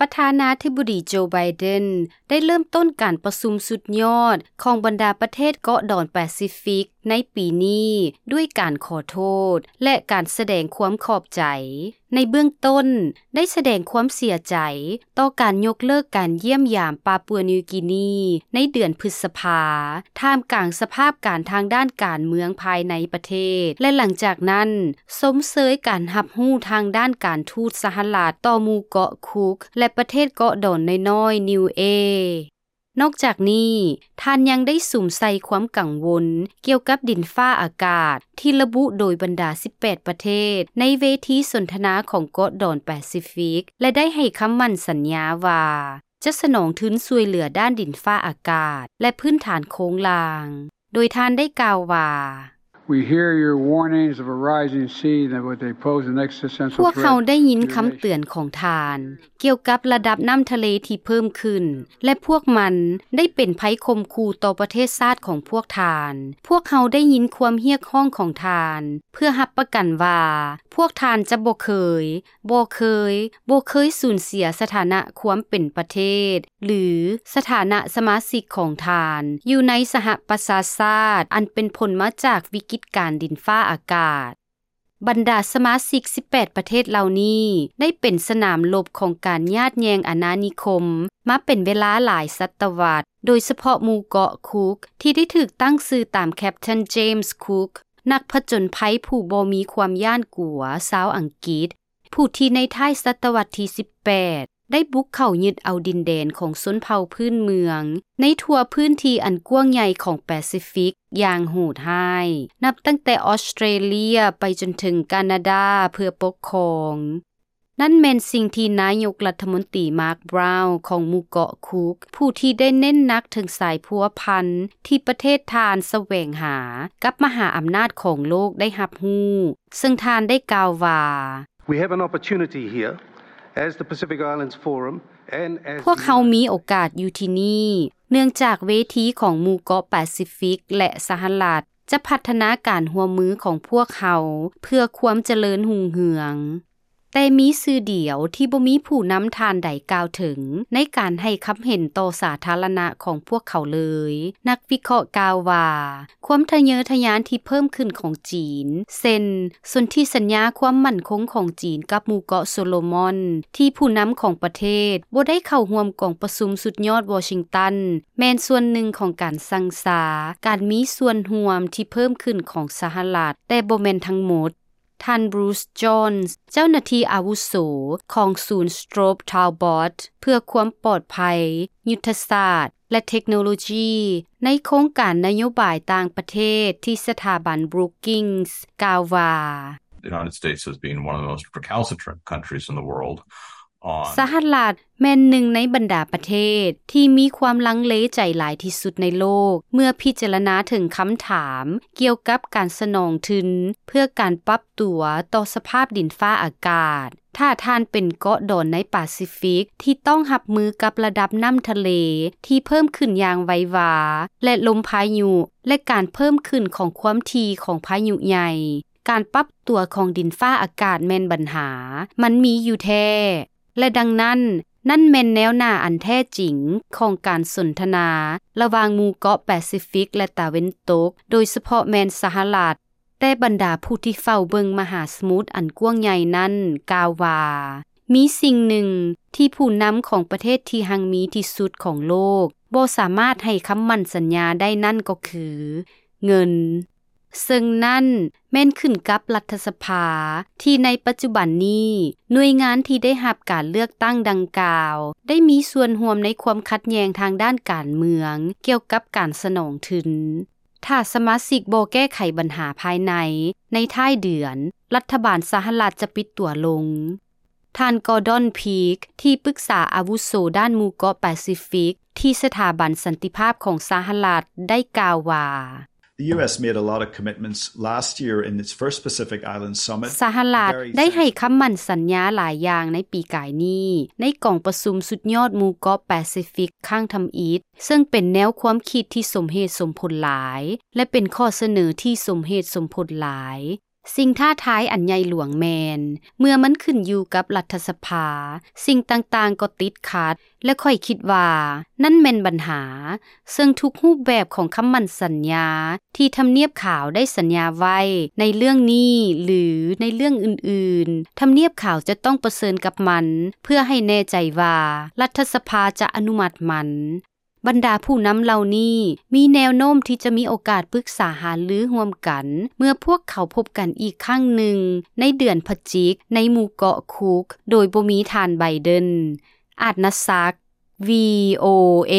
ປະທານາທິບໍດີໂຈ ໄບເດັນ ໄດ້ເລີ່ມຕົ້ນການປະຊຸມສຸດຍອດຂອງບັນດາປະເທດເກາະດອນປາຊີຟິກໃນປີນີ້ ດ້ວຍການຂໍໂທດ ແລະ ການສະແດງຄວາມຂອບໃຈ. ໃນເບື້ອງຕົ້ນ ໄດ້ສະແດງຄວາມເສຍໃຈຕໍ່ການຍົກເລີກການຢ້ຽມຢາມປາປົວນິວກີນີໃນເດືອນພຶດສະພາ ທ່າມກາງສະພາບການທາງດ້ານການເມືອງພາຍໃນປະເທດ ແລະ ຫຼັງຈາກນັ້ນ ຊົມເຊີຍການຮັບຮູ້ທາງດ້ານການທູດສະຫະລັດຕໍ່ໝູ່ເກາະຄຸກ ແລະ ປະເທດເກາະດອນນ້ອຍໆ ນິວເອ. ນອກຈາກນີ້, ທ່ານຍັງໄດ້ສຸມໃສ່ຄວາມກັງວົນກ່ຽວກັບດິນຟ້າອາກາດທີ່ລະບຸໂດຍບັນດາສິບແປດປະເທດໃນເວທີສົນທະນາຂອງເກາະດອນປາຊີຟິກ ແລະ ໄດ້ໃຫ້ຄຳໝັ້ນສັນຍາວ່າ ຈະສະໜອງທຶນຊ່ວຍເຫຼືອດ້ານດິນຟ້າອາກາດ ແລະ ພື້ນຖານໂຄງລ່າງ, ໂດຍທ່ານໄດ້ກ່າວວ່າ We hear your warnings of a rising sea and what they pose an existential threat. ພວກເຮົາໄດ້ຍິນຄຳເຕືອນຂອງທ່ານກ່ຽວກັບລະດັບນ້ຳທະເລທີ່ເພີ່ມຂຶ້ນ ແລະ ພວກມັນໄດ້ເປັນໄພຂົ່ມຂູ່ຕໍ່ປະເທດຊາດຂອງພວກທ່ານ. ພວກເຮົາໄດ້ຍິນຄວາມຮຽກຮ້ອງຂອງທ່ານ ເພື່ອຮັບປະກັນວ່າ ພວກທ່ານຈະບໍ່ເຄີຍ, ບໍ່ເຄີຍ, ບໍ່ເຄີຍສູນເສຍສະຖານະຄວາມເປັນປະເທດ ຫຼື ສະຖານະສະມາຊິກຂອງທ່ານຢູ່ໃນສະຫະປະຊາຊາດ ອັນເປັນຜົນມາຈາກວິກິດການດິນຟ້າອາກາດ. ບັນດາສະມາຊິກສິບແປດປະເທດເຫຼົ່ານີ້ ໄດ້ເປັນສະໜາມລົບຂອງການຍາດແຍ່ງອານານິຄົມມາເປັນເວລາຫຼາຍສະຕະວັດ, ໂດຍສະເພາະໝູ່ເກາະຄຸກ ທີ່ໄດ້ຖືກຕັ້ງຊື່ຕາມ Captain James Cook ນັກຜະຈົນໄພຜູ້ບໍ່ມີຄວາມຢ້ານກົວຊາວອັງກິດ ຜູ້ທີ່ໃນທ້າຍສະຕະວັດທີສິບແປດ ໄດ້ບຸກເຂົ້າຍຶດເອົາດິນແດນຂອງຊົນເຜົ່າພື້ນເມືອງໃນທົ່ວພື້ນທີ່ອັນກວ້າງໃຫຍ່ຂອງປາຊີຟິກຢ່າງໂຫດຮ້າຍ, ນັບຕັ້ງແຕ່ອອສເຕຣເລຍໄປຈົນເຖິງການາດາເພື່ອປົກຄອງ. ນັ້ນແມ່ນສິ່ງທີ່ນາຍົກລັດຖະມົນຕີ Mark Brown ຂອງໝູ່ເກາະຄຸກ ຜູ້ທີ່ໄດ້ເນັ້ນໜັກເຖິງສາຍພົວພັນທີ່ປະເທດທ່ານສະແຫວງຫາກັບມະຫາອຳນາດຂອງໂລກໄດ້ຮັບຮູ້, ເຊິ່ງທ່ານໄດ້ກ່າວວ່າ We have an opportunity here as the Pacific Islands Forum and as ພວກເຮົາມີໂອກາດຢູ່ທີ່ນີ້ ເນື່ອງຈາກເວທີຂອງໝູ່ເກາະປາຊີຟິກ ແລະ ສະຫະລັດ ຈະພັດທະນາການຮ່ວມມືຂອງພວກເຮົາເພື່ອຄວາມຈະເລີນຮຸ່ງເຮືອງ. ແຕ່ມີຊື່ດຽວທີ່ບໍ່ມີຜູ້ນຳທ່ານໃດກ່າວເຖິງໃນການໃຫ້ຄຳເຫັນຕໍ່ສາທາລະນະຂອງພວກເຂົາເລີຍ. ນັກວິເຄາະກ່າວວ່າ ຄວາມທະເຍີທະຍານທີ່ເພີ່ມຂຶ້ນຂອງຈີນ ເຊັ່ນ ສົນທິສັນຍາຄວາມໝັ້ນຄົງຂອງຈີນກັບໝູ່ເກາະໂຊໂລມອນ ທີ່ຜູ້ນຳຂອງປະເທດບໍ່ໄດ້ເຂົ້າຮ່ວມກອງປະຊຸມສຸດຍອດວໍຊິງຕັນ ແມ່ນສ່ວນໜຶ່ງຂອງການຊັ່ງຊາການມີສ່ວນຮ່ວມທີ່ເພີ່ມຂຶ້ນຂອງສະຫະລັດ, ແຕ່ບໍ່ແມ່ນທັງໝົດ. ທ່ານ Bruce Jones ເຈົ້າໜ້າທີ່ອາວຸໂສຂອງສູນ Strobe Talbot ເພື່ອຄວາມປອດໄພ, ຍຸດທະສາດ ແລະ ເທັກໂນໂລຈີ ໃນໂຄງການນະໂຍບາຍຕ່າງປະເທດທີ່ສະຖາບັນ Brookings ກ່າວວ່າ The United States has been one of the most recalcitrant countries in the world on ສະຫະລັດແມ່ນໜຶ່ງໃນບັນດາປະເທດທີ່ມີຄວາມລັງເລໃຈຫຼາຍທີ່ສຸດໃນໂລກ ເມື່ອພິຈາລະນາເຖິງຄຳຖາມກ່ຽວກັບການສະໜອງທຶນເພື່ອການປັບຕົວຕໍ່ສະພາບດິນຟ້າອາກາດ. ຖ້າທ່ານເປັນເກາະດອນໃນປາຊີຟິກທີ່ຕ້ອງຮັບມືກັບລະດັບນ້ຳທະເລທີ່ເພີ່ມຂຶ້ນຢ່າງໄວວາ ແລະ ລົມພາຍຸ ແລະ ການເພີ່ມຂຶ້ນຂອງຄວາມຖີ່ຂອງພາຍຸໃຫຍ່, ການປັບຕົວຂອງດິນຟ້າອາກາດແມ່ນບັນຫາ, ມັນມີຢູ່ແທ້ ແລະ ດັ່ງນັ້ນ, ນັ້ນແມ່ນແນວໜ້າອັນແທ້ຈິງຂອງການສົນທະນາລະຫວ່າງໝູ່ເກາະປາຊີຟິກ ແລະ ຕາເວັນຕົກ, ໂດຍສະເພາະແມ່ນສະຫະລັດ. ແຕ່ບັນດາຜູ້ທີ່ເຝົ້າເບິ່ງມະຫາສະໝຸດອັນກວ້າງໃຫຍ່ນັ້ນກ່າວວ່າ ມີສິ່ງໜຶ່ງທີ່ຜູ້ນຳຂອງປະເທດທີ່ຮັ່ງມີທີ່ສຸດຂອງໂລກບໍ່ສາມາດໃຫ້ຄຳໝັ້ນສັນຍາໄດ້ນັ້ນກໍຄື ເງິນ. ເຊິ່ງນັ້ນແມ່ນຂຶ້ນກັບລັດຖະສະພາ ທີ່ໃນປັດຈຸບັນນີ້ ໜ່ວຍງານທີ່ໄດ້ຮັບການເລືອກຕັ້ງດັ່ງກ່າວ ໄດ້ມີສ່ວນຮ່ວມໃນຄວາມຂັດແຍ່ງທາງດ້ານການເມືອງ ກ່ຽວກັບການສະໜອງທຶນ. ຖ້າສະມາຊິກບໍ່ແກ້ໄຂບັນຫາພາຍໃນ ໃນທ້າຍເດືອນ, ລັດຖະບານສະຫະລັດຈະປິດຕົວລົງ. ທ່ານ Gordon Peake ທີ່ປຶກສາອາວຸໂສດ້ານໝູ່ເກາະປາຊີຟິກ ທີ່ສະຖາບັນສັນຕິພາບຂອງສະຫະລັດ ໄດ້ກ່າວວ່າ The U S made a lot of commitments last year in its first Pacific Islands Summit. ສະຫະລັດໄດ້ໃຫ້ຄຳໝັ້ນສັນຍາຫຼາຍຢ່າງໃນປີກາຍນີ້ ໃນກອງປະຊຸມສຸດຍອດໝູ່ເກາະປາຊີຟິກຄັ້ງທຳອິດ, ເຊິ່ງເປັນແນວຄວາມຄິດທີ່ສົມເຫດສົມຜົນຫຼາຍ ແລະ ເປັນຂໍ້ສະເໜີທີ່ສົມເຫດສົມຜົນຫຼາຍ. ສິ່ງທ້າທາຍອັນໃຫຍ່ຫຼວງແມ່ນ ເມື່ອມັນຂຶ້ນຢູ່ກັບລັດຖະສະພາ, ສິ່ງຕ່າງໆກໍຕິດຂັດ ແລະ ຂ້ອຍຄິດວ່ານັ້ນແມ່ນບັນຫາ, ເຊິ່ງທຸກຮູບແບບຂອງຄຳໝັ້ນສັນຍາທີ່ທຳນຽບຂາວໄດ້ສັນຍາໄວ້ໃນເລື່ອງນີ້ ຫຼື ໃນເລື່ອງອື່ນໆ, ທຳນຽບຂາວຈະຕ້ອງປະເຊີນກັບມັນ ເພື່ອໃຫ້ແນ່ໃຈວ່າລັດຖະສະພາຈະອະນຸມັດມັນ. ບັນດາຜູ້ນຳເຫຼົ່ານີ້ມີແນວໂນ້ມທີ່ຈະມີໂອກາດປຶກສາຫາລືຮ່ວມກັນ ເມື່ອພວກເຂົາພົບກັນອີກຄັ້ງໜຶ່ງໃນເດືອນພະຈິກໃນໝູ່ເກາະຄຸກ ໂດຍບໍ່ມີທ່ານໄບເດັນ. ອາດນະສັກ ວີໂອເອ.